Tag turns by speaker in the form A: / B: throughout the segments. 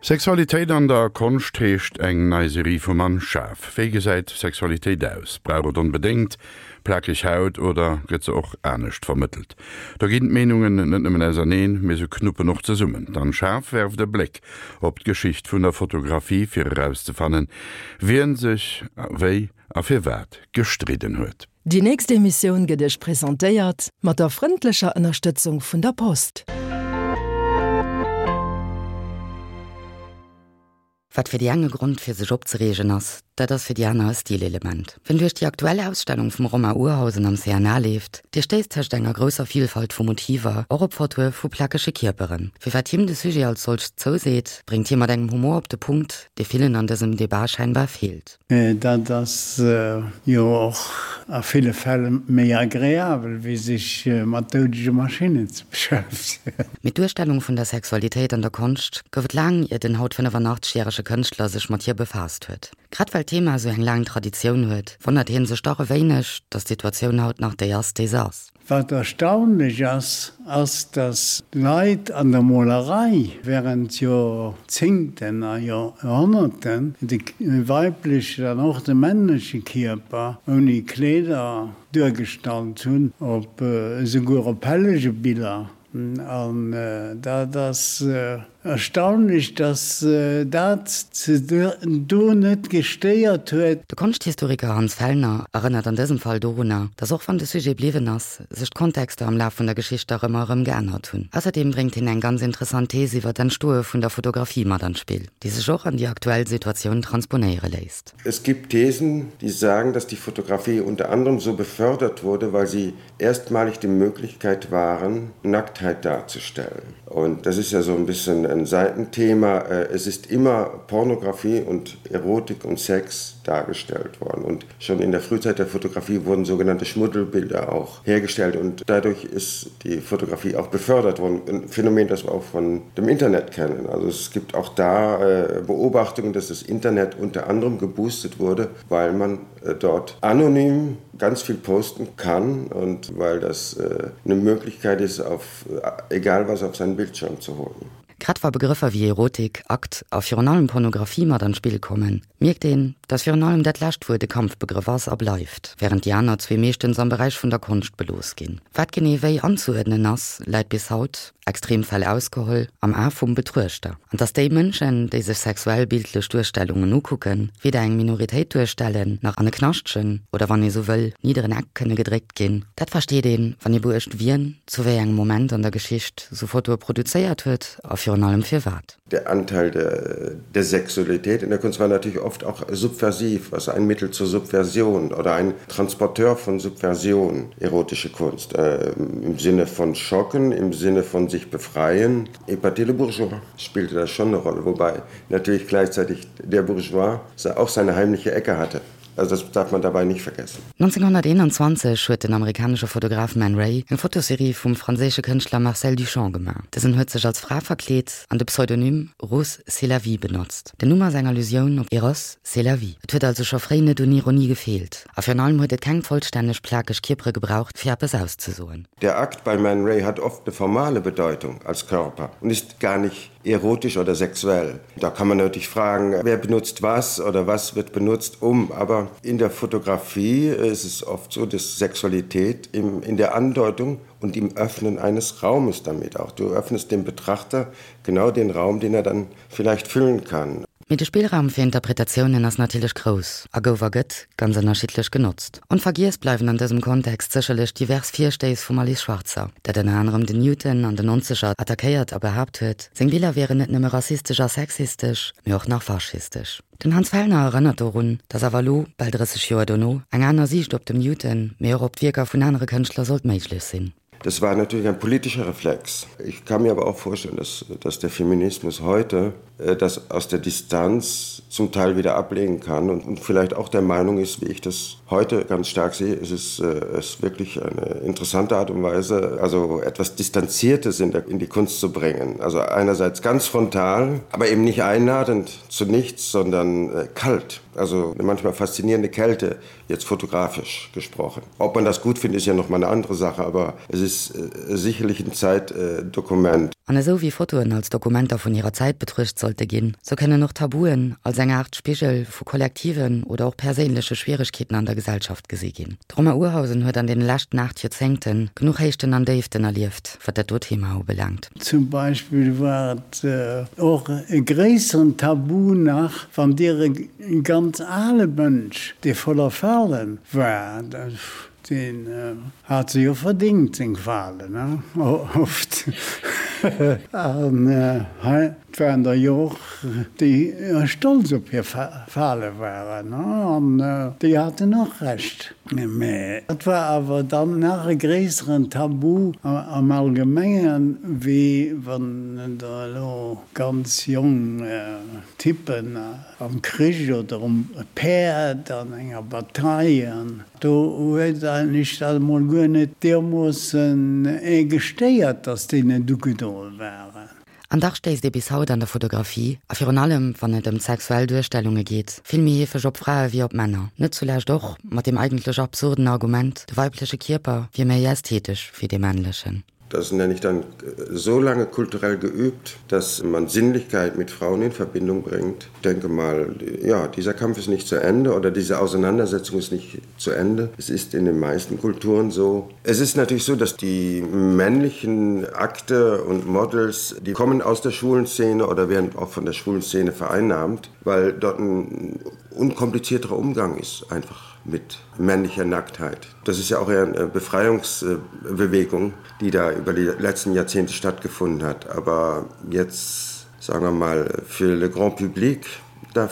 A: Sexualitéit an der Konscht heescht eng nei Serie vum Anne Schaaf. Wéi gesäit Sexualitéit aus? Brauch et onbedéngt plakeg Haut oder gëtt se och anescht vermëttelt? Do ginn d'Meenungen net nëmmen auserneen, mee se knuppen och zesummen. D'Anne Schaaf werft e Bléck op d'Geschicht vun der Fotografie fir erauszefannen, wien sech wéi a firwat gestridden huet.
B: Déi nächst Emissioun gëtt Iech presentéiert mat der frëndlecher Ënnerstëtzung vun der Post.
C: Wat fir déi eng e Grond fir sech opzereegen ass, dat ass fir déi aner e Stilelement. Wien duerch déi aktuell Ausstellung vum Romain Urhausen am CNA leeft, dee stéisst tëscht enger grousser Vilfalt vu Motiver och op Fotoe vu plakege Kierperen. Firwat him de Sujet als solcht zouseet, bréngt hie mat engem Humor op de Punkt, dee villen an dësem Debat scheinbar feelt.
D: Dat ass jo och a ville Fäll méi agreabel, wéi sech mat doudege Maschinnen ze beschäftegen.
C: Mee d'Duerstellung vun der Sexualitéit an der Konscht gouf et laang, ier den haut 85 järege Kënschtler sech mat hir befaasst huet. Grad well d'Thema esou eng laang Traditioun huet, wonnert hie sech dach e wéineg, datt d'Situatioun haut nach déi ass, déi se ass.
D: Wat erstaunlech ass, ass, dass Leit an der Molerei während Joerzéngten a Joerhonnerten de weiblechen an och de männleche Kierper ouni Kleeder duergestallt hunn, op esouguer op Hellegebiller. An dat ass Erstaunlech, dass dat se do net gestéiert huet.
C: De Konschthistoriker Hans Fellner erënnert an dësem Fall dorunner, datt och wann de Sujet bliwwen ass, sech d'Kontexter am Laf vun der Geschicht dach ëmmer erëm geännert hunn. Ausserdeem bréngt hien eng ganz interessant Thees iwwer d'Entstoe vun der Fotografie mat an d'Spill, déi sech och an déi aktuell Situatioun transponéiere léisst.
E: Es gibt Thesen, die sagen, dass die Fotografie unter anderem so befördert wurde, weil sie erstmalig die Möglichkeit waren, Nacktheit darzustellen. Und das ist ja so ein bisschen ein Seitenthema. Äh, es ist immer Pornografie und Erotik und Sex dargestellt worden. Und schon in der Frühzeit der Fotografie wurden sogenannte Schmuddelbilder auch hergestellt und dadurch ist die Fotografie auch befördert worden. Ein Phänomen, das wir auch von dem Internet kennen. Also es gibt auch da äh, Beobachtungen, dass das Internet unter anderem geboostet wurde, weil man äh, dort anonym ganz viel posten kann und weil das äh, eine Möglichkeit ist, auf äh, egal was auf seinen Bildschirm zu holen.
C: Grad wa Begrëffer wéi Erotik, Akt a virun allem Pornografie mat an d'Spill kommen, mierkt een, dass virun allem dat lescht Wuert e Kampfbegrëff ass a bleift, wärend déi aner zwee meeschtens am Beräich vun der Konscht belooss ginn. Wat genee wéi anzeuerdnen ass, läit bis haut, Extremfäll ausgeholl, am A vum Betruechter. An dass déi Mënschen, déi sech sexuell bildlech Duerstellungen ukucken, weder eng Minoritéit duerstellen, nach an e Knaschtchen, oder wann ee sou wëll, nidderen Eck kënne gedréckt ginn, dat versteet een, wann ee beuecht, wien zu wéi engem Moment an der Geschicht sou Fotoe produzéiert huet a virun allem firwat.
E: Der Anteil der, der Sexualität in der Kunst war natürlich oft auch subversiv, also ein Mittel zur Subversion oder ein Transporteur von Subversion, erotische Kunst, äh, im Sinne von Schocken, im Sinne von sich befreien. Épater le Bourgeois spielte da schon eine Rolle, wobei natürlich gleichzeitig der Bourgeois auch seine heimliche Ecke hatte. Also das darf man dabei nicht vergessen.
C: 1921 huet den amerikanesche Fotograf Man Ray eng Fotoserie vum franséische Kënschtler Marcel Duchamp gemaach. Dësen huet sech als Fra verkleet an de Pseudonym Rose c'est la vie benotzt. Den Numm ass eng Allusioun op Eros, c'est la vie. Et huet also scho fréi net un Ironie gefeelt. A virun allem huet et keng vollstänneg plakeg Kierpere gebraucht, fir eppes auszesoen.
E: Der Akt bei Man Ray hat oft eine formale Bedeutung als Körper und ist gar nicht erotisch oder sexuell. Da kann man natürlich fragen, wer benutzt was oder was wird benutzt um. Aber in der Fotografie ist es oft so, dass Sexualität im, in der Andeutung und im Öffnen eines Raumes damit auch. Du öffnest dem Betrachter genau den Raum, den er dann vielleicht füllen kann.
C: Mee de Spillraum fir Interpretatiounen ass natierlech grouss a gouf a gëtt ganz ënnerschiddlech genotzt. Onvergiess bleiwen an dësem Kontext sécherlech divers Virstéiss vum Alice Schwarzer, dat ënner anerem den Newton an den Nonzeger attackéiert a behaapt huet, seng Biller wieren net nëmme rassistesch a sexistesch, mee och nach faschistesch. Den Hans Fellner erënnert dorun, datt awer elo, bal 30 Joer dono, eng aner Siicht op dem Newton, mee och op d'Wierker vun anere Kënschtler sollt méiglech sinn.
E: Das war natürlich ein politischer Reflex. Ich kann mir aber auch vorstellen, dass, dass der Feminismus heute äh, das aus der Distanz zum Teil wieder ablegen kann und, und vielleicht auch der Meinung ist, wie ich das heute ganz stark sehe, es ist, äh, es ist wirklich eine interessante Art und Weise, also etwas Distanziertes in, der, in die Kunst zu bringen. Also einerseits ganz frontal, aber eben nicht einladend zu nichts, sondern äh, kalt. Also eine manchmal faszinierende Kälte, jetzt fotografisch gesprochen. Ob man das gut findet, ist ja noch mal eine andere Sache, aber es ist äh, sicherlich ein Zeitdokument.
C: An esou wéi Fotoen als Dokumenter vun hirer Zäit betruecht sollte ginn, sou kënnen och Tabuen als eng Aart Spigel vu kollektiven oder och perséinleche Schwieregkeeten an der Gesellschaft gesi ginn. De Romain Urhausen huet an deene leschten 8 Joerzéngte genuch Héichten an Déiften erlieft, wat dat do Thema ubelaangt.
D: Zum Beispill war et och e gréisseren Tabu nach, wann Dir e ganz ale Mënsch, dee voller Falen war, deen hat se jo verdingt, seng Falen, oft, an hei Et waren der jo och, déi stolz op hir Fale waren, an déi haten och Recht. Mä et war awer dann nach e gréisseren Tabu am Allgemengen, wéi wann der elo ganz jong Typen am Krich oder um Päerd an enger Bataille, an do huet eigentlech dat emol guer net deermoossen ee gestéiert, datt déi net ugedoe waren.
C: An dach stéisst ee bis haut an der Fotografie, a virun allem wann et ëm sexuell Duerstellunge geet, vill méi heefeg op Frae wéi op Männer. Net zulescht och mat deem eigentlech absurden Argument, de weibleche Kierper wier méi ästhetesch wéi dee männlechen.
E: Das nenne ich dann so lange kulturell geübt, dass man Sinnlichkeit mit Frauen in Verbindung bringt. Ich denke mal, ja, dieser Kampf ist nicht zu Ende oder diese Auseinandersetzung ist nicht zu Ende. Es ist in den meisten Kulturen so. Es ist natürlich so, dass die männlichen Akte und Models, die kommen aus der schwulen Szene oder werden auch von der schwulen Szene vereinnahmt, weil dort ein unkomplizierterer Umgang ist einfach mit männlicher Nacktheit. Das ist ja auch eher eine Befreiungsbewegung, die da über die letzten Jahrzehnte stattgefunden hat. Aber jetzt sagen wir mal für le grand public, da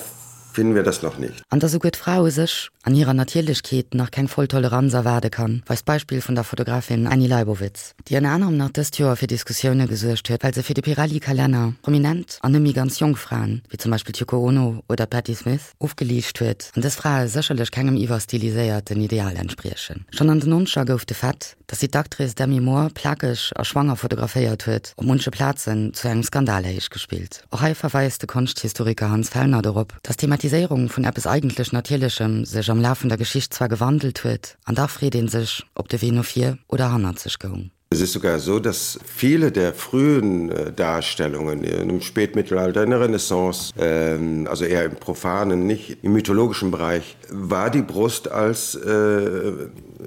E: finden wir das noch nicht.
C: An dass esouguer d'Fra u sech an hirer Natierlechkeet nach keng voll Toleranz erwaarde kann, weist d'Beispill vun der Fotografin Annie Leibovitz, déi ënner anerem nach dëst Joer fir Diskussioune gesuergt huet, well se fir de Pirelli-Kalenner prominent an net méi ganz jonk Fraen, wéi zum Beispill d'Yoko Ono oder d'Patti Smith, ofgeliicht huet an dës Frae sécherlech kengem iwwerstiliséierten Ideal entspriechen. Schonn an den Nonzeger gouf de Fait, dass si d'Actrice Demi Moore plakeg a schwanger fotograféiert huet, op munche Plazen zu engem Skandal héichgespillt. Och hei verweist de Konschthistoriker Hans Fellner dorop, dass d'Thematiséierung vun eppes eigentlech Natierlechem sech am Laf vun der Geschicht zwar gewandelt huet, an dach freet ee sech, ob de Wee no vir oder hannerzeg goung.
E: Es ist sogar so, dass viele der frühen äh, Darstellungen im Spätmittelalter in der Renaissance, äh, also eher im profanen, nicht im mythologischen Bereich, war die Brust als äh,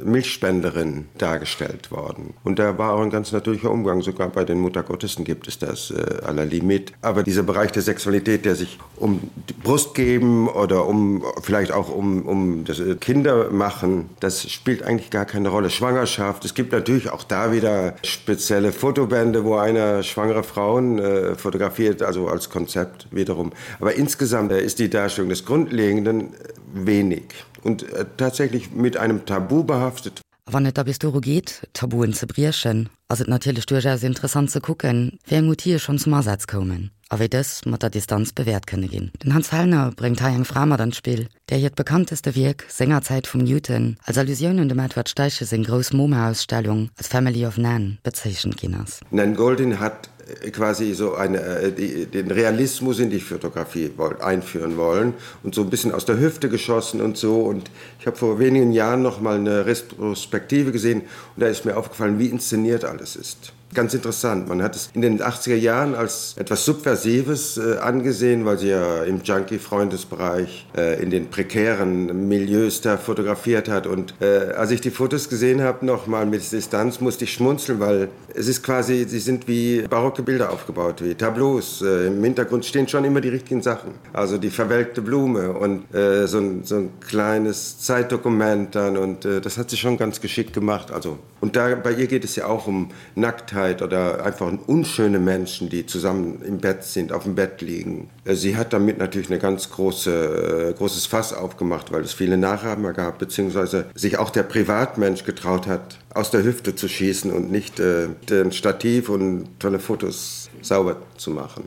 E: Milchspenderin dargestellt worden. Und da war auch ein ganz natürlicher Umgang. Sogar bei den Muttergottessen gibt es das äh, aller Limit. Aber dieser Bereich der Sexualität, der sich um die Brust geben oder um vielleicht auch um, um das äh, Kinder machen, das spielt eigentlich gar keine Rolle. Schwangerschaft, es gibt natürlich auch da wieder spezielle Fotobände, wo einer schwangere Frauen äh, fotografiert, also als Konzept wiederum. Aber insgesamt äh, ist die Darstellung des Grundlegenden äh, wenig und äh, tatsächlich mit einem Tabu behaftet.
C: A wann et da bis doru geet, Tabuen ze briechen, ass et natierlech duerchaus interessant ze kucken, wéi eng Outile schonn zum Asaz koumen a wéi dës mat der Distanz bewäert kënne ginn. Den Hans Fellner bréngt hei eng Fra mat an d'Spill, där hiert bekannteste Wierk sengerzäit vum Newton als Allusioun un dem Edward Steichen seng grouss MoMA-Ausstellung als Family of Nan bezeechent ginn ass.
E: Nan Goldin hat quasi so eine, äh, die, den Realismus in die Fotografie wollt, einführen wollen und so ein bisschen aus der Hüfte geschossen und so. Und ich habe vor wenigen Jahren noch mal eine Retrospektive gesehen und da ist mir aufgefallen, wie inszeniert alles ist ganz interessant. Man hat es in den 80er Jahren als etwas Subversives äh, angesehen, weil sie ja im Junkie-Freundesbereich äh, in den prekären Milieus da fotografiert hat. Und äh, als ich die Fotos gesehen habe, noch mal mit Distanz musste ich schmunzeln, weil es ist quasi sie sind wie barocke Bilder aufgebaut, wie Tableaus. Äh, Im Hintergrund stehen schon immer die richtigen Sachen. Also die verwelkte Blume und äh, so, ein, so ein kleines Zeitdokument dann und äh, das hat sie schon ganz geschickt gemacht. Also und da bei ihr geht es ja auch um Nacktheit oder einfach unschöne Menschen, die zusammen im Bett sind, auf dem Bett liegen. Äh, sie hat damit natürlich eine ganz große, äh, großes Fass aufgemacht, weil es viele Nachahmer gab, beziehungsweise sich auch der Privatmensch getraut hat, aus der Hüfte zu schießen und nicht äh, den Stativ und tolle Fotos sauber zu machen.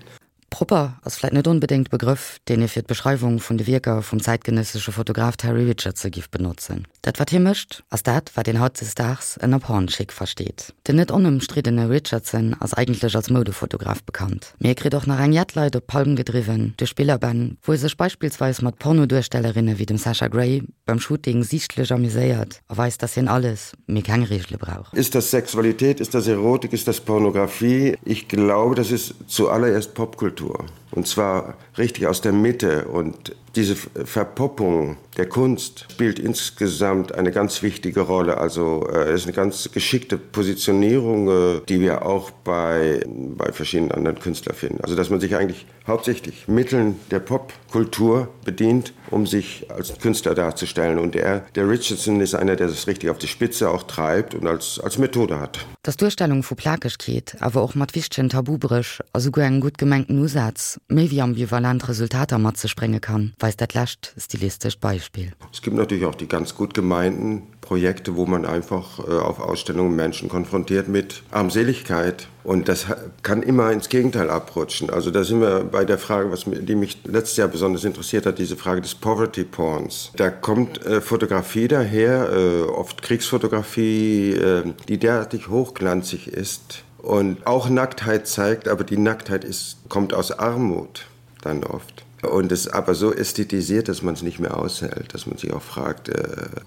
C: Propper ass vläit net onbedéngt Begrëff, deen ee fir d'Beschreiwung vun de Wierker vum zäitgenëssesche Fotograf Terry Richardson giff benotzen. Dat wat hie mécht, ass dat wat een hautdesdaags ënner Porn-Chic versteet. Den net onëmstriddene Richardson ass eigentlech als Moudefotograf bekannt, mee e kritt och nach eng jett Leit op d'Palm gedriwwen duerch Bilderbänn, wou e sech beispillsweis mat Pornoduerstellerinne wéi dem Sasha Grey beim Shooting siichtlech amuséiert a weist, dass hien alles, mee keng Reegele brauch.
E: Ist das Sexualität, ist das Erotik, ist das Pornografie? Ich glaube, das ist zuallererst Popkultur und zwar richtig aus der Mitte und diese Verpoppung der Kunst spielt insgesamt eine ganz wichtige Rolle. Also äh, ist eine ganz geschickte Positionierung, äh, die wir auch bei, bei verschiedenen anderen Künstlern finden. Also dass man sich eigentlich hauptsächlich Mitteln der Popkultur bedient, um sich als Künstler darzustellen. Und er, der Richardson ist einer, der das richtig auf die Spitze auch treibt und als, als Methode hat.
C: Dass d'Duerstellung vu Plakegkeet awer och mat wichtegen Tabubréch a souguer engem gutt gemengten Usaz méi wéi ambivalent Resultater mat sech brénge kann, weist dat lescht stilistescht Beispill.
E: Es gibt natürlich auch die ganz gut gemeinten Projekte, wo man einfach äh, auf Ausstellungen Menschen konfrontiert mit Armseligkeit. Und das kann immer ins Gegenteil abrutschen. Also da sind wir bei der Frage, was, die mich letztes Jahr besonders interessiert hat, diese Frage des Poverty Porns. Da kommt äh, Fotografie daher, äh, oft Kriegsfotografie, äh, die derartig hochglanzig ist und auch Nacktheit zeigt, aber die Nacktheit ist, kommt aus Armut dann oft. Und es aber so ästhetisiert, dass man es nicht mehr aushält, dass man sich auch fragt, äh,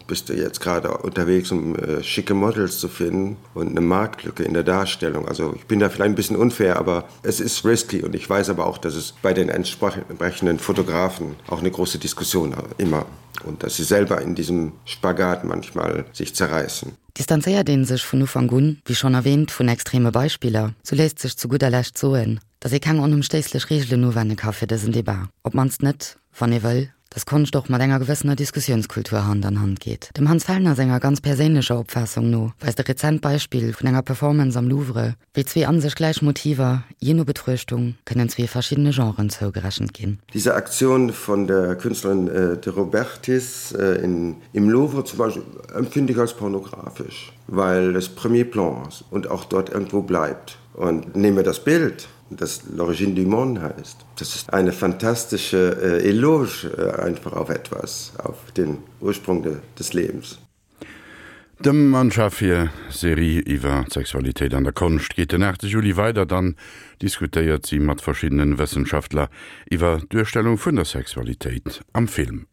E: bist du jetzt gerade unterwegs, um äh, schicke Models zu finden und eine Marktlücke in der Darstellung. Also ich bin da vielleicht ein bisschen unfair, aber es ist risky und ich weiß aber auch, dass es bei den entsprechenden Fotografen auch eine große Diskussion immer und dass sie selber in diesem Spagat manchmal sich zerreißen.
C: Distanzéiert ee sech vun Ufank un, wéi schonn erwähnt, vun extreme Beispiller, sou léisst sech zu gudder Lescht soen, datt ee keng onëmstéisslech Reegelen uwenne ka fir dësen Debat, op d'mannst net, wann ee wëll, datt Konscht och mat enger gewëssener Diskussiounskultur Hand an Hand geet. Dem Hans Fellner senger ganz perséinlecher Opfaassung no weist e rezent Beispill vun enger Performance am Louvre, wéi zwee an sech gläich Motiver, jee no Betruechtung, kënnen zwee verschiddene Genren zougerechent ginn.
E: Diese Aktion von der Künstlerin de Robertis in im Louvre zum Beispiel empfinde ich als pornografisch, weil es Premier Plan ist und auch dort irgendwo bleibt. Und nehme das Bild, das L'origine du monde heißt. Das ist eine fantastische äh, Eloge äh, einfach auf etwas, auf den Ursprung de, des Lebens.
A: Dem Anne Schaaf hir Serie iwwer d'Sexualitéit an der Konscht geet den 8 Juli weider. Dann diskutéiert si mat verschiddenen Wëssenschaftler iwwer d'Duerstellung vun der Sexualitéit am Film.